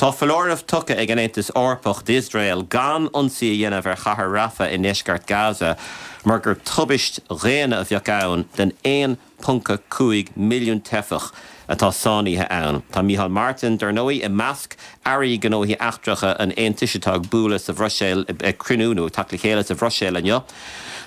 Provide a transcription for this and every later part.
Tá foláireamh tugtha ag an Aontas Eorpach d'Iosrael gan ionsaí a dhéanamh ar chathair Rafah i ndeisceart Gaza mar gur tubaist dhaonna a bheadh ann don 1.5 milliún teifeach atá sáinnithe ann. Tá Micheál Martin, dar ndóigh, i measc airí gnóthaí eachtracha an Aontais atá ag bualadh sa Bhruiséil, ag cruinniú nó ag teacht le chéile sa Bhruiséil inniu.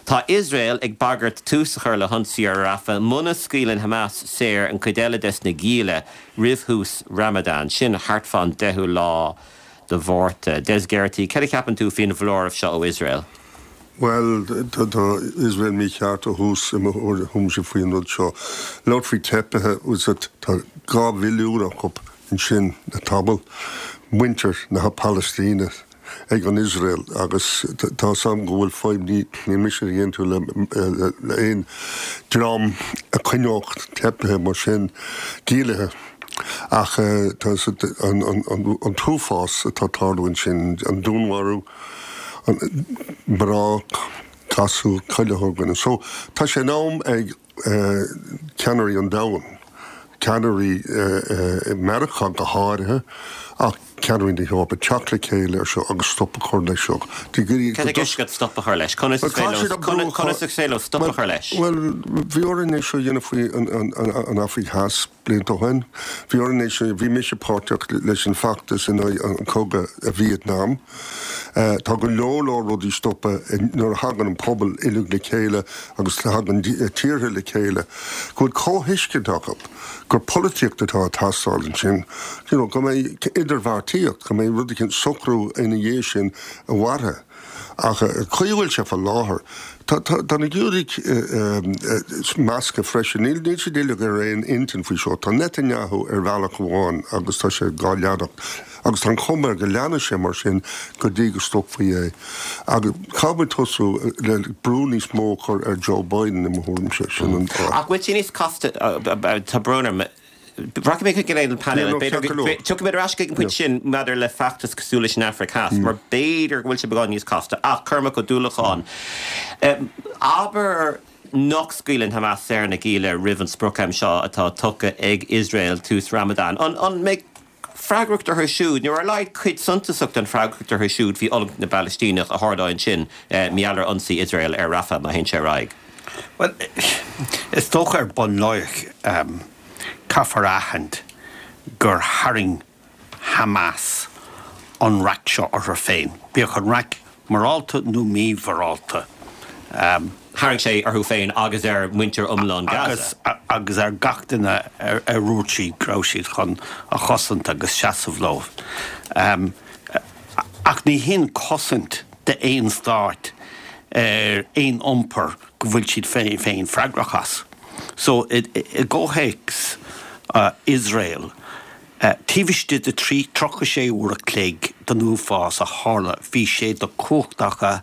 Tá Iosrael ag bagairt tús a chur le hionsaí ar Rafah muna scaoileann Hamas saor an chuid eile des na gialla roimh thús Ramadan, sin thart fán deichiú lá de Mhárta. Des Geraghty, cad a cheapann tú faoin bhfoláireamh seo ó Iosrael? Bhuel, tá Iosrael mícheart ó thús i mo thuairimse faoin rud seo. Labhairt faoi teifigh, tá 2 mhilliún acu ansin le tamall, muintir na Palaistíne ag an Iosrael agus tá 's agam go bhfuil fadhb, níl mise ag aontú le aon dream a choinneodh teifigh mar sin giallaithe ach tá an t-uafás atá ag tarlú ansin, an dúnmharú, mná, gasúir, chuile dhuine. So tá sé in am ag ceannairí an domhain, ceannairí Meiriceá go háirithe, ach ceannairí na hEorpa, teacht le chéile ar seo agus stop a chur leis seo. Cad tá i gceist agat stop a chur leis? Conas is féidir leo stop a chur leis? Bhuel, bhí orainn é seo a dhéanamh faoi an Afraic Theas. Blianta ó shin, bhí orainn é seo, bhí mise páirteach leis an feachtas in aghaidh an chogadh i Vietnam. Tá go leor leor rudaí stoptha nuair a thagann an pobal uilig le chéile agus tagann tíortha le chéile, go bhfuil comhthuiscint acu gur polaitíocht atá ag teastáil ansin, you know, go mbeidh idirbheartaíocht, go mbeidh rud eicínt, socrú ina dhiaidh sin a mhairfidh. Ach an chaoi a bhfuil sé fá láthair, tá na Giúdaigh measctha freisin. Níl siad uilig ar aon intinn faoi seo. Tá Netanyahu ar bhealach amháin agus tá sé dhá leanacht. Agus tá an chuma air go leanfaidh sé mar sin go dtí go stopfaí é. Agus caithfidh muid tosú le brú níos mó a chur ar Joe Biden i mo thuairimse. Sin an fáth. Ach bhfuil sé níos casta, tá brón orm, Rachaidh mé chuig an painéal. Tiocfaidh mé ar ais chuig an bpointe sin maidir le feachtas cosúil leis an Afraic Theas, mar b'fhéidir go bhfuil sé beagán níos casta. Ach Cormac Ó Dúlacháin, abair nach scaoileann Hamas saor na gialla roimh an sprioc-am seo atá tugtha ag Iosrael, tús Ramadan. An mbeidh freagracht orthu siúd, nó ar a laghad cuid suntasach den freagracht orthu siúd faoi fhulaingt na bPalaistíneach a tharlóidh ansin mar gheall ar ionsaí Iosrael ar Rafah má théann sé ar aghaidh? Bhuel, is dócha ar bun láithreach, caithfear a aithint gur tharraing Hamas an raic seo orthu féin, bíodh an raic morálta nó mímhorálta. Tharraing sé orthu féin agus ar mhuintir iomlán Gaza. Agus ar gach duine ar dhúirt siad go raibh siad chun a chosaint agus seasamh leo. Ach ní hin cosaint d'aon stát ar aon iompar go bhfuil siad féin freagrach as. So, i gcomhthéacs Iosrael, Taobh istigh de 36 uair a chloig den uafás a tharla bhí sé de chumhacht acu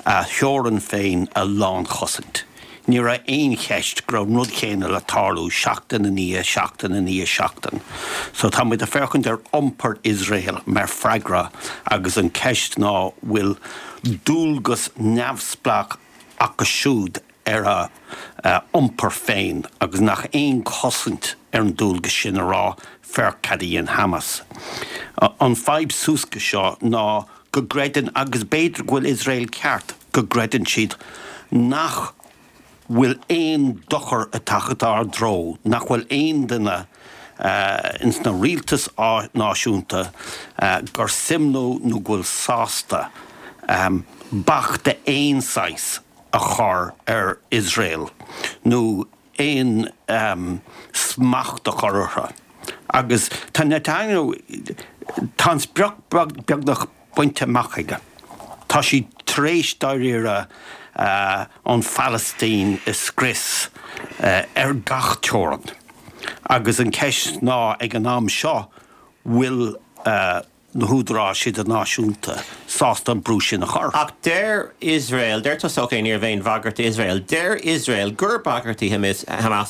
a theorainn féin a lánchosaint. Ní raibh aon cheist go raibh an rud chéanna le tarlú seachtain i ndiaidh seachtain i ndiaidh seachtain. So tá muid ag féachaint ar iompar Iosrael mar freagra agus an ceist ná bhfuil dualgas neamhspleách acu siúd ar a iompar féin agus nach aon chosaint ar an dualgas sin a rá féach cad a dhein Hamas. An fadhb suas go seo ná go gcreideann, agus b'fhéidir go bhfuil Iosrael ceart, go gcreideann siad nach bhfuil aon dochar ag teacht ár dtreo, nach bhfuil aon duine ins na rialtais náisiúnta gur suim leo nó go bhfuil sásta bac d'aon saghas a chur ar Iosrael nó aon smacht a chur orthu. Agus tá Netanyahu, tá an sprioc beagnach bainte amach aige. Tá siad tar éis dáiríre an Phalaistín a scrios ar gach teorainn. Agus an ceist ná ag an am seo, bhfuil na húdaráis idirnáisiúnta sásta an brú sin a chur. Ach deir Iosrael, deir tusa ok, ní raibh aon bhagairt d'Iosrael, deir Iosrael gur bagairt í Hamas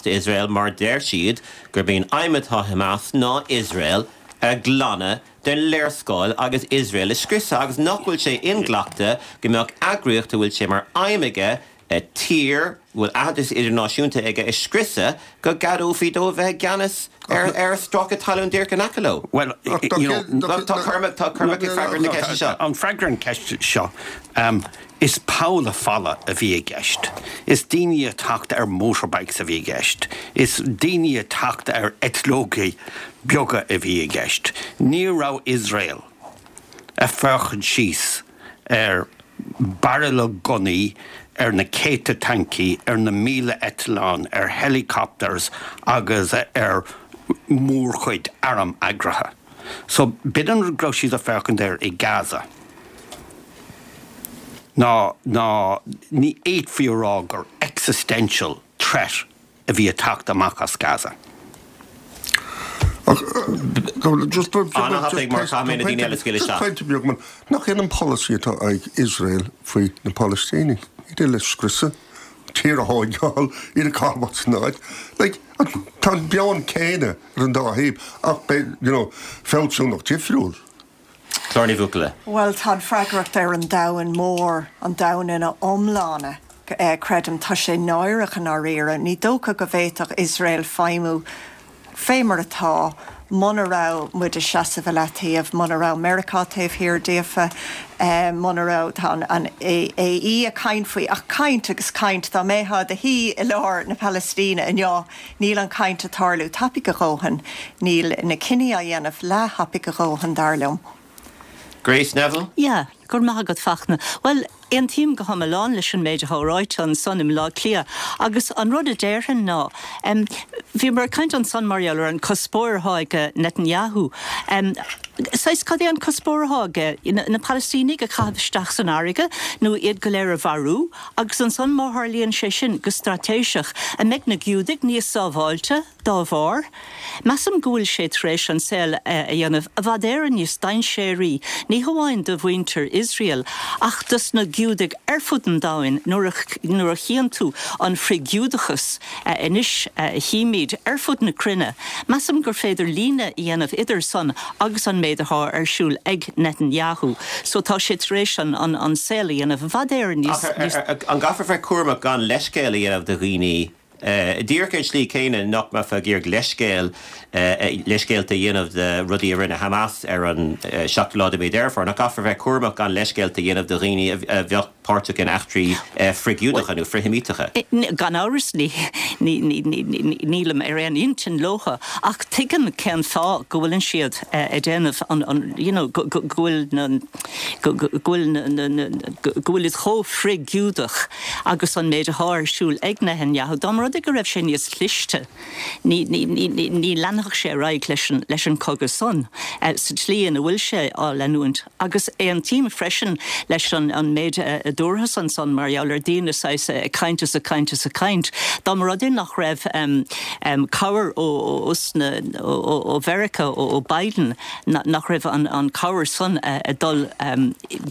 d'Iosrael mar deir siad gurb í an aidhm atá ag Hamas ná Iosrael a ghlanadh den léarscáil agus Iosrael a scriosadh agus nach bhfuil sé inghlactha go mbeadh eagraíocht a bhfuil sé mar aidhm aige. Tír a bhfuil aitheantas idirnáisiúnta aige a scriosadh go gceadófaí dóibh bheith i gceannas ar stráice talún díreach in aice leo. Bhuel, you know, tá Cormac, tá Cormac ag freagairt na ceiste seo. An freagra ar an cheist seo, is poll folamh a bhí i gceist. Is daoine ag teacht ar motorbikes a bhí i gceist. Is daoine ag teacht ar eitleogaí beaga a bhí i gceist. Ní raibh Iosrael ag féachaint síos ar bairille gunnaí, ar na céadta tancaí, ar na 1,000 eitleán, ar helicopters agus ar mhórchuid arm eagraithe. So, b'in an rud go raibh siad ag féachaint air i Gaza. Ná, ná, ní fhéadfaí a rá gur existential threat a bhí ag teacht amach as Gaza. Ach just pointe beag man, nach in an polasaí atá ag Iosrael faoi na Palaistínigh, iad uile a scriosadh, tír a thóigeáil, iad a chaitheamh as an áit. Like, tá an meon céanna ar an dá thaobh ach beidh, you know, fealsúnacht difriúil. Clár Ní Bhuachalla. Bhuel, tá an freagracht ar an domhan mór, an domhan ina iomláine, creidim. Tá sé náireach i ndáiríre. Ní dócha go bhféadfadh Iosrael feidhmiú fé mar atá muna raibh muid ag seasamh i leataobh, muna raibh Meiriceá taobh thiar díofa, muna raibh, tá an AE ag caint faoi, ach caint agus caint, dá mbeifeá i do shuí i lár na Palaistíne inniu, Níl an chaint ag tarlú tapaidh a dhóthain. Níl na cinní á dhéanamh leath-thapaidh a dhóthain, dar liom. Grace Neville? Yeah, go raibh maith agat Fachtna. Bhuel, aontaím go hiomlán leis an méid atá ráite ansan i mBleá Cliath agus an rud a déarfainn ná, em, bhíomar ag caint ansan mar gheall ar an cuspóir atá ag Netanyahu. Em, saghas, cad é an cuspóir atá aige? Na Palaistínigh a chaitheamh isteach san fharraige nó iad go léir a mharú? Agus ansan, má tharlaíonn sé sin go straitéiseach, an mbeidh na Giúdaigh níos sábháilte dá bharr? Measaim go bhfuil sé tar éis an saol a dhéanamh i bhfad Éireann níos dainséaraí, ní hamháin do mhuintir Iosrael, ach dos na Giúdaigh ar fud an domhain nuair a chíonn tú an frith-Ghiúdachas anois a chímid ar fud na cruinne. Measaim gur féidir líne a dhéanamh idir san agus an méid atá ar siúl ag Netanyahu. So tá sé tar éis an an saol a dhéanamh i bhfad Éireann níos. Ach an gcaithfear bheith cúramach gan leithscéal a dhéanamh do dhaoine, díreach ar an tslí chéanna nach mbeifeá ag iarraidh leithscéal, leithscéalta a dhéanamh de rudaí a rinne Hamas ar an seachtú lá de mhí Deireadh Fómhair, nach gcaithfear bheith cúramach gan leithscéalta a dhéanamh do dhaoine a bheadh páirteach in eachtraí frith-Ghiúdacha nó frith-Sheimíteacha. Gan amhras, nílim ar aon intinn leotha, ach tuigim cén fáth go bhfuileann siad ag déanamh an, you know, go bhfuil na, go bhfuil na, go bhfuil siad chomh frith-Ghiúdach agus an méid atá ar siúl ag Netanyahu. Dá mba rud é go raibh sé níos cliste. Ní leanfadh sé ar aghaidh leis an chogadh san sa tslí ina bhfuil sé á leanúint. Agus aontaím freisin leis an méid a dúrthas ansan mar gheall ar daoine saghas ag caint is ag caint is ag caint. Dá mba rud é nach raibh cabhair ó Mheiriceá, ó Biden, nach raibh an cabhair san ag dul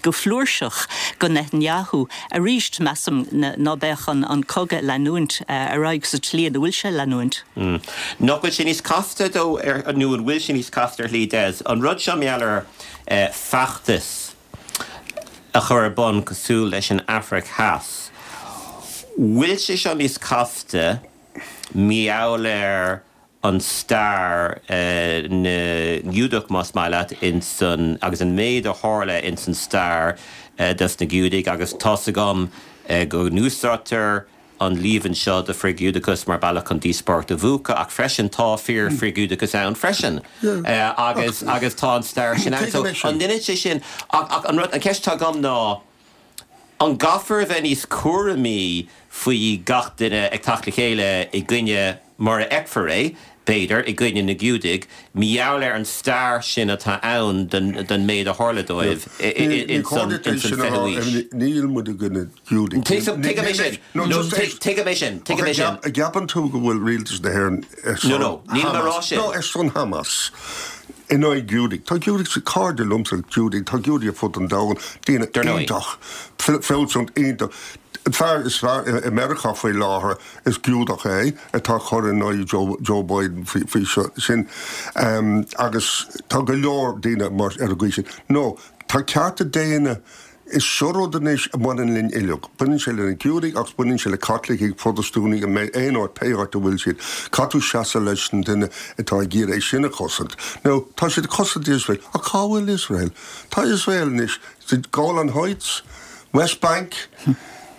go flúirseach go Netanyahu, Arís, measaim ná beadh an cogadh ag leanúint ar aghaidh sa tslí ina bhfuil sé ag leanúint. Nach bhfuil sé níos casta dó, nó an bhfuil sé níos casta ar shlí, Des, an rud seo mar gheall ar feachtas a chur ar bun cosúil leis an Afraic Theas, bhfuil sé seo níos casta mar gheall ar an stair na nGiúdach, más maith leat, ins an, agus an méid a tharla ins an stair dos na Giúdaigh, agus tá's agam go n-úsáidtear an líomhain seo de frith-Ghiúdachas mar bealach chun díospóireacht a mhúchadh, ach freisin tá fíor-frith-Ghiúdachas ann freisin, agus, agus tá an stair sin ann. So, an ndeineann sé sin, ach, ach an rud, an cheist atá agam ná, An gcaithfear a bheith níos cúramaí faoi gach duine ag teacht le chéile i gcoinne, mar a fheicfear é, b'fhéidir, i gcoinne na Giúdaigh, mar gheall ar an stair sin atá ann den méid a tharla dóibh ins an 20ú haois? Níl muid i gcoinne Giúdaigh. Tuigim é sin. Tuigim é sin. Tuigim é sin. An gceapann tú go bhfuil rialtas na hÉireann ar son Hamas? No, no. Nílim ag rá sin. No, ar son Hamas. In aghaidh Giúdaigh. Tá Giúdaigh, cairde liomsa Giúdaigh, tá Giúdaigh ar fud an domhain, daoine iontach, fealsúnacht iontach. An fear is fearr i Meiriceá faoi láthair, is Giúdach é, atá ag cur in aghaidh Joe Biden faoi seo, sin. Agus tá go leor daoine mar, ar an gcaoi sin. No, tá cearta daonna. Is seo rud anois a bhaineann linn uilig. Baineann sé le na Giúdaigh agus baineann sé le Caitlicigh, Protastúnaigh, aon áit, pé áit a bhfuil siad. Caithfidh tú seasamh leis an duine atá ag iarraidh é sin a chosaint. Now, tá siad ag cosaint Iosrael, ach cá bhfuil Iosrael? Tá Iosrael anois sa Golan Heights, West Bank,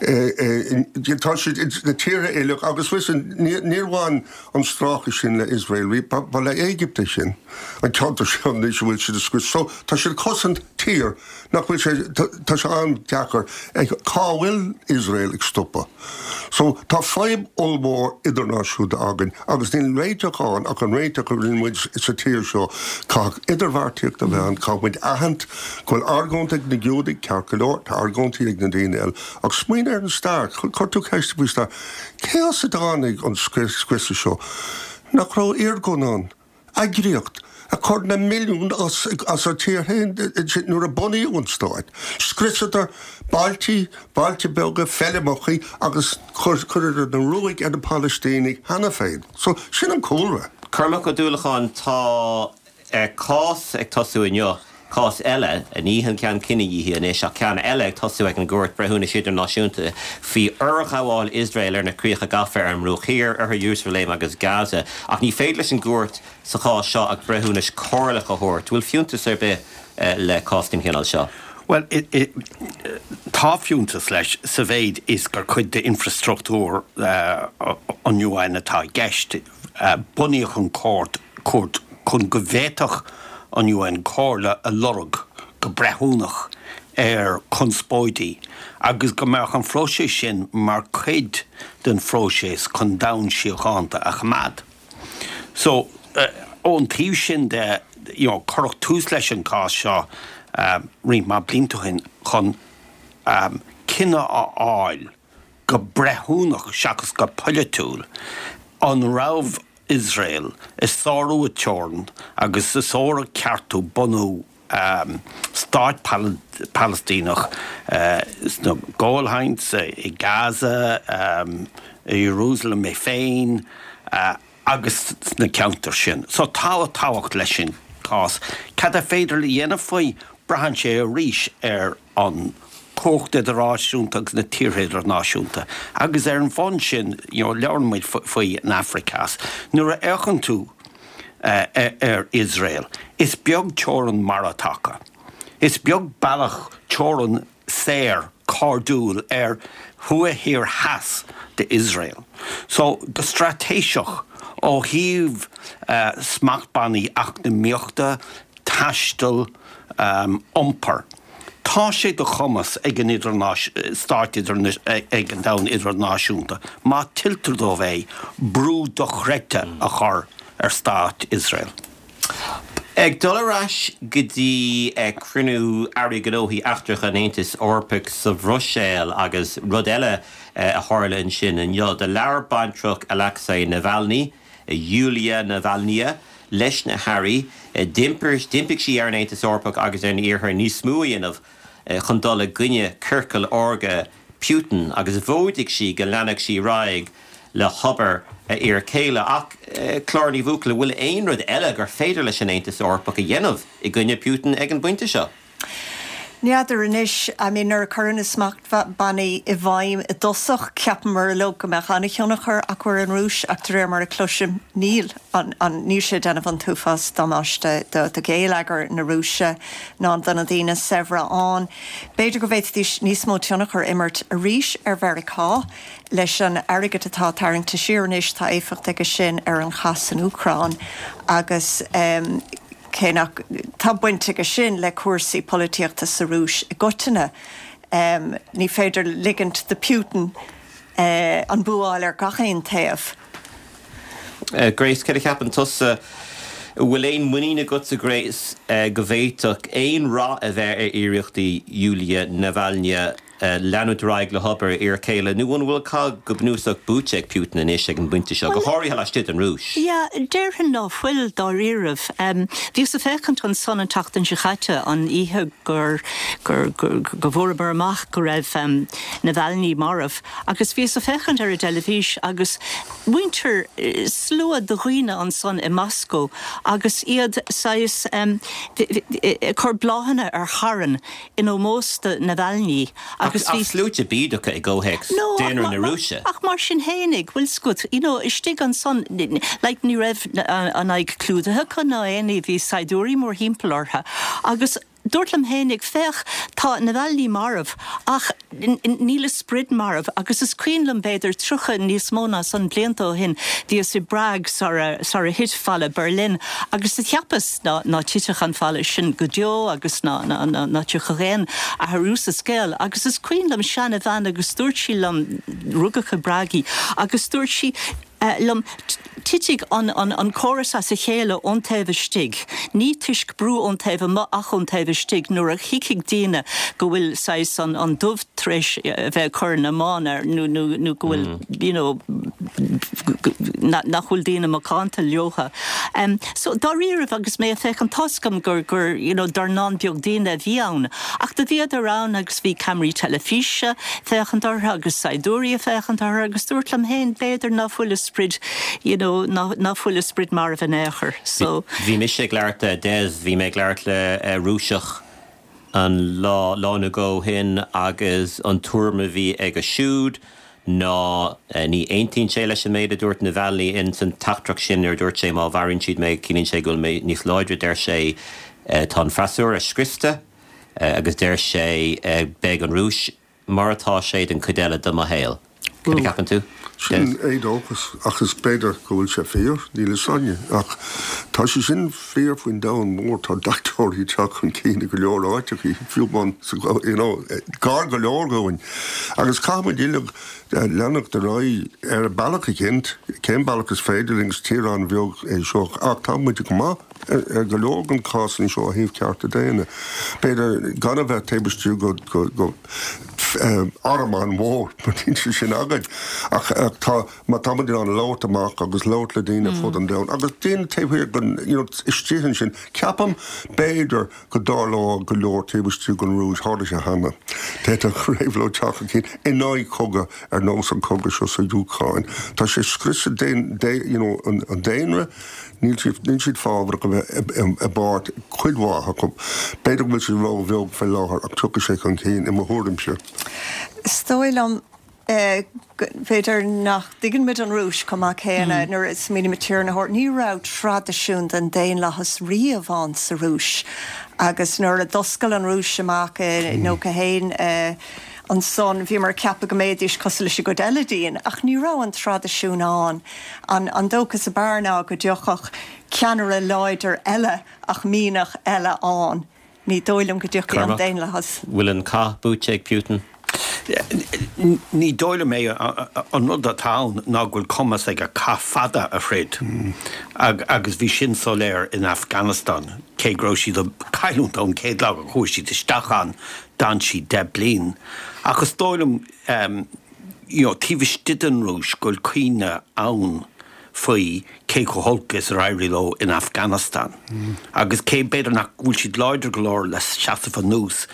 tá siad na tíortha uilig agus listen, níor bhain an stráice sin le Iosrael, ba le Éigipt é sin, an ceantar seo anois a bhfuil siad ag scrios. So, tá siad ag cosaint tír Nach bhfuil sé, tá sé an-deacair, cá bhfuil Iosrael ag stopadh? So, tá fadhb ollmhór idirnáisiúnta againn agus níl réiteach ann ach an réiteach a rinne muid sa tír seo, caithfidh idirbheartaíocht a bheith ann, caithfidh muid aithint go bhfuil argóint ag na Giúdaigh, ceart go leor, tá argóintí ag na daoine eile, ach smaoinigh ar an stair, chuir tú ceist faoi stair, cé as a dtáinig an scriosadh seo? Nach raibh Irgun ann? Eagraíocht a chuir na milliúin as a tír féin nuair a bunaíodh an stát. Scriosadar bailtí, bailte beaga, feirmeachaí agus chuireadar na ruaig ar na Palaistínigh cheana féin. So, sin an cúlra. Cormac Ó Dúlacháin, Tá cás ag tosú inniu. Cás eile, ní an ceann cinedhíothaithe anois, ach ceann eile ag tosú ag an gCúirt Breithiúnais Idirnáisiúnta faoi fhorghabháil Iosrael ar na críocha gafa ar an mBruach Thiar, Oirthear Iarúsailéim agus Gaza. Ach ní féidir leis an gcúirt sa chás seo ach breithiúnas comhairleach a thabhairt. Bhfuil fiúntas ar bith le cás den chineál seo? Bhuel, tá fiúntas leis sa mhéid is gur cuid d'infreastruchtúr an UN atá i gceist. Bunaíodh an chúirt chun go bhféadfadh an UN comhairle a lorg go breithiúnach ar chonspóidí agus go mbeadh an phróiseas sin mar chuid den phróiseas chun domhan síochánta a choimeád. So, ón taobh sin de, you know, cuireadh tús leis an chás seo roinnt mhaith blianta ó shin chun cinneadh a fháil go breithiúnach seachas go polaitiúil, an raibh Iosrael ag sárú a teorann agus ag sárú cearta bunú stáit Palaistíneach sna Golan Heights, i Gaza, i Iarúsailéim é féin agus sna ceantair sin. So tá tábhacht leis an cás. Cad ar féidir a dhéanamh faoi? Braitheann sé arís ar an chumhacht idirnáisiúnta agus na tíortha idirnáisiúnta. Agus ar an bhonn sin, you know, labhrann muid faoi an Afraic Theas. Nuair a fhéachann tú ar Iosrael, is beag teorann mara atá acu. Is beag bealach teorann saor, cairdiúil ar thuaidh thiar theas d'Iosrael. So, go straitéiseach, ó thaobh smachtbhannaí eacnamaíochta, taistil, iompair. Tá sé de chumas ag an stáit ag an domhan idirnáisiúnta, má tuilltear dóibh é, brú dochreidte a chur ar stát Iosrael. Ag dul ar ais go dtí cruinniú Airí Gnóthaí Eachtracha an Aontais Eorpaigh sa Bhruiséil agus rud eile a tharla ansin inniu. Do labhair baintreach Alexei Navalny, Yulia Navalnaya, leis na hairí. D'impigh sí ar an Aontas Eorpach agus ar an Iarthar níos mó a dhéanamh chun dul i gcoinne ciorcal órga Putin agus mhóidigh sí go leanfadh sí ar aghaidh le hobair a fhir céile. Ach, Clár Ní Bhuachalla, bhfuil aon rud eile gur féidir leis an Aontas Eorpach a dhéanamh i gcoinne Putin ag an bpointe seo? N'fheadar anois, I mean nuair a cuireadh na smachtbhannaí i bhfeidhm i dtosach, cheapamar uilig go mbeadh an-thionchar acu ar an Rúis ach de réir mar a cloisim, níl an, an, níl sé ag déanamh an t-uafás damáiste do, do gheilleagar na Rúise ná do na daoine saibhre ann. B'fhéidir go bhféadfaidís níos mó tionchar a imirt arís ar Mheiriceá leis an airgead atá tarraingte siar anois, tá éifeacht aige sin ar an chath san Úcráin agus eh, Cé nach, tá baint aige sin le cúrsaí polaitíochta sa Rúis i gcoitinne, ní féidir ligint do Putin an bua a fháil ar gach aon taobh. Grace, céard a cheapann tusa? An bhfuil aon muinín agatsa, Grace, go bhféadfadh aon rath a bheith ar iarrachtaí Yulia Navalnaya? leanúint ar aghaidh le hobair a fhir céile nó an bhfuil cath go bunúsach buaite ag Putin anois ag an bpointe seo, go háirithe laistigh den Rúis? Yeah, déarfainn ná fuil, dáiríribh. Bhíos ag féachaint ansan an tseachtain seo chaite, an oíche gur, gur, gur, go bhfuaireamar amach go raibh Navalny marbh, agus bhíos ag féachaint ar an dteilifís agus muintir, slua de dhaoine ansan i Moscó agus iad saghas ag cur bláthanna ar charn in ómós do Navalny agus bhí. Ach sluaite bídeacha i gcomhthéacs daonra na Rúise. Ach mar sin fhéinig, bhfuil 's agat, you know, istigh ansan, like, ní raibh an aghaidh clúdaithe acu ná aon ní, bhí saighdiúirí mórthimpeall orthu agus dúrt liom fhéinig, féach, tá Navalny marbh ach níl a sprid marbh agus is cuimhin liom b'fhéidir 30, níos mó ná san, blianta ó shin, bhíos i bPrág sara, sara thit falla Berlin agus do cheapas ná, ná titfeadh an falla sin go deo agus ná, ná, ná, ná tiocfadh aon athrú sa scéal agus is cuimhin liom seana bhean agus dúirt sí liom, rugadh i bPrág í, agus dúirt sí, liom, Titfidh an córas as a chéile ón taobh istigh, ní toisc brú ón taobh amuigh ach ón taobh istigh, nuair a thuigfidh daoine go bhfuil saghas an dubh tar éis a bheith ag cur na mbán air nó nó go bhfuil you know nach bhfuil daoine macánta leotha. So dáiríribh agus mé ag féachaint tá's agam gur gur you know dornán beag daoine a bhí ann ach do bhíodar ann agus bhí ceamaraí teilifíse, féachaint orthu agus saighdiúirí ag féachaint orthu agus dúrt liom féin b'fhéidir ná fuil a sprid you know ná ná fuil a sprid marbh in aon chor so. Bhí mise ag labhairt le Des, bhí mé ag labhairt le Rúiseach an lá, lá nó dhó ó shin agus an tuairim a bhí aige siúd ná ní aontaíonn sé leis an méid a dúirt Navalny in san teachtaireacht sin nuair a dúirt sé má mharaíonn siad mé ciallaíonn sé go bhfuil mé níos láidre deir sé tá an freasúra scriosta agus deir sé beidh an Rúis mar atá sé don chuid eile de mo shaol. Cad a cheapann tú? Sin éadóchas, ach is b'fhéidir go bhfuil sé fíor, níl fhios againne. Ach tá sé sin fíor faoin domhan mór, tá deachtóirí ag teacht chun cinn i go leor áiteachaí, fiú amháin sa, you know, gar go leor dhúinn. Agus caithfidh muid uilig leanacht ar aghaidh ar bealach eicínt, cén bealach is féidir linn, is tír an-bheag é seo, ach tá muid go maith. Ar go leor den cásanna seo ó thaobh cearta daonna, b'fhéidir gan a bheith taobh istigh de arm an-mhór, mar níl sé sin againn, ach tá, má tá muid in ann labhairt amach agus labhairt le daoine ar fud an domhain agus daoine taobh thiar den, you know, istigh ansin, ceapaim, b'fhéidir go dtarlódh go leor taobh istigh den Rúis, tharla sé cheana, d'fhéadfadh réabhlóid teacht chun cinn in aghaidh cogadh ar nós an cogadh seo sa Úcráin. Tá sé ag scriosadh you know, an daonra, Níl siad, níl siad fábharach a bheith i bpáirt, cuid mhaith acu. B'fhéidir go bhfuil siad ró-bheag fé láthair ach tiocfaidh sé chun cinn, i mo thuairimse. Is dóigh liom, b'fhéidir nach dtuigeann muid an Rúis chomh maith céanna nuair a smaoinímid tír na hEorpa. Ní raibh traidisiún den daonlathas riamh ann sa Rúis agus nuair a d'oscail an Rúis amach i 91, ansan bhíomar ag ceapadh go mbeidís cosúil leis an gcuid eile dínn ach ní raibh an traidisiún ann. An dóchas ab fhearr ná go dtiocfadh ceannaire láidir eile ach mianach eile ann. Ní dóigh liom go dtiocfaidh an daonlathas. Bhfuil an cath buaite ag Putin? Ní dóigh liom é. An rud atá ann ná go bhfuil cumas aige cath fada a throid agus bhí sin soiléir in Afghanistan, cé go raibh siad ag cailliúint ón chéad lá a chuaigh siad isteach ann, d'fhan siad 10 bliain. Ach is dóigh liom, you know, taobh istigh den Rúis go bhfuil cuimhne ann faoi cé chomh holc is ar éirigh leo in Afghanistan agus cé b'fhéidir nach bhfuil siad láidir go leor le seasamh anuas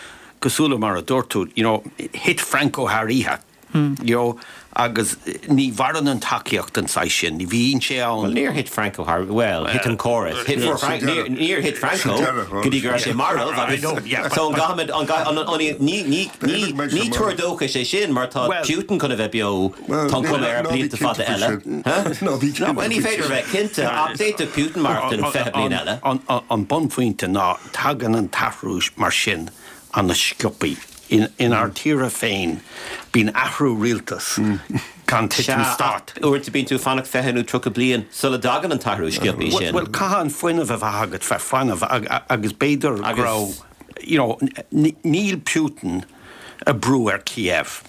cosúil le mar a dúirt tú, you know, thit Franco thar oíche, you know, agus ní mhaireann an tacaíocht den saghas sin, ní bhíonn sé ann. Bhuel, níor thit Franco thar, bhuel, thit an córas. Thit Franco, níor thit Franco go dtí go raibh sé marbh agus so an gcaithfimid, an gcaithfidh, ní, ní, ní, ní tuar dóchais é sin mar tá Putin chun a bheith beo, tá an chuma air, blianta fada eile. Bhuel, ní féidir a bheith cinnte ach d'fhéadfadh Putin maireachtaint 20 bliain eile. An bunphointe ná tagann an t-athrú mar sin an-sciobtha. Inár dtíortha féin, bíonn athrú rialtais gan titim stáit. Sea, ach uaireanta bíonn tú ag fanacht 20 nó 30 bliain sula dtagann an t-athrú sciobtha sin. Bhuel, caithfidh an fuinneamh a bheith agat bheith foighneach agus b'fhéidir go raibh, you know, níl Putin ag brú ar Kiev.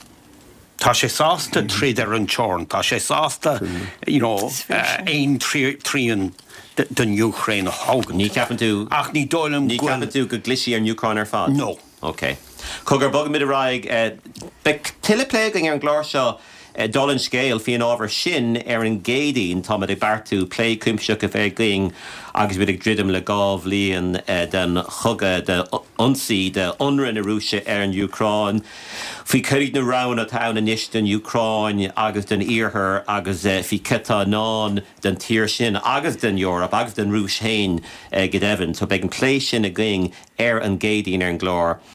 Tá sé sásta troid ar an teorainn, tá sé sásta, you know, aon trian den Úcráin a thógaint. Ní cheapann tú, Ach ní dóigh liom ní go bhfuil. ceapann tú go gclisfidh ar an Úcráin ar fad? No. Ok. Cogar, bogfaimid ar aghaidh. Beidh tuilleadh plé againn ar an gclár seo, dála an scéil, faoin ábhar sin ar an gCéadaoin. Táimid ag beartú plé cuimsitheach a bheith againn agus muid ag druidim le 2 bhliain den chogadh, d'ionsaí, d'ionradh na Rúise ar an Úcráin, faoi cad iad na roghanna atá ann anois don Úcráin agus don Iarthar agus faoi cad atá i ndán don tír sin agus don Eoraip agus don Rúis féin go deimhin. So beidh an plé sin againn ar an gCéadaoin ar an gclár.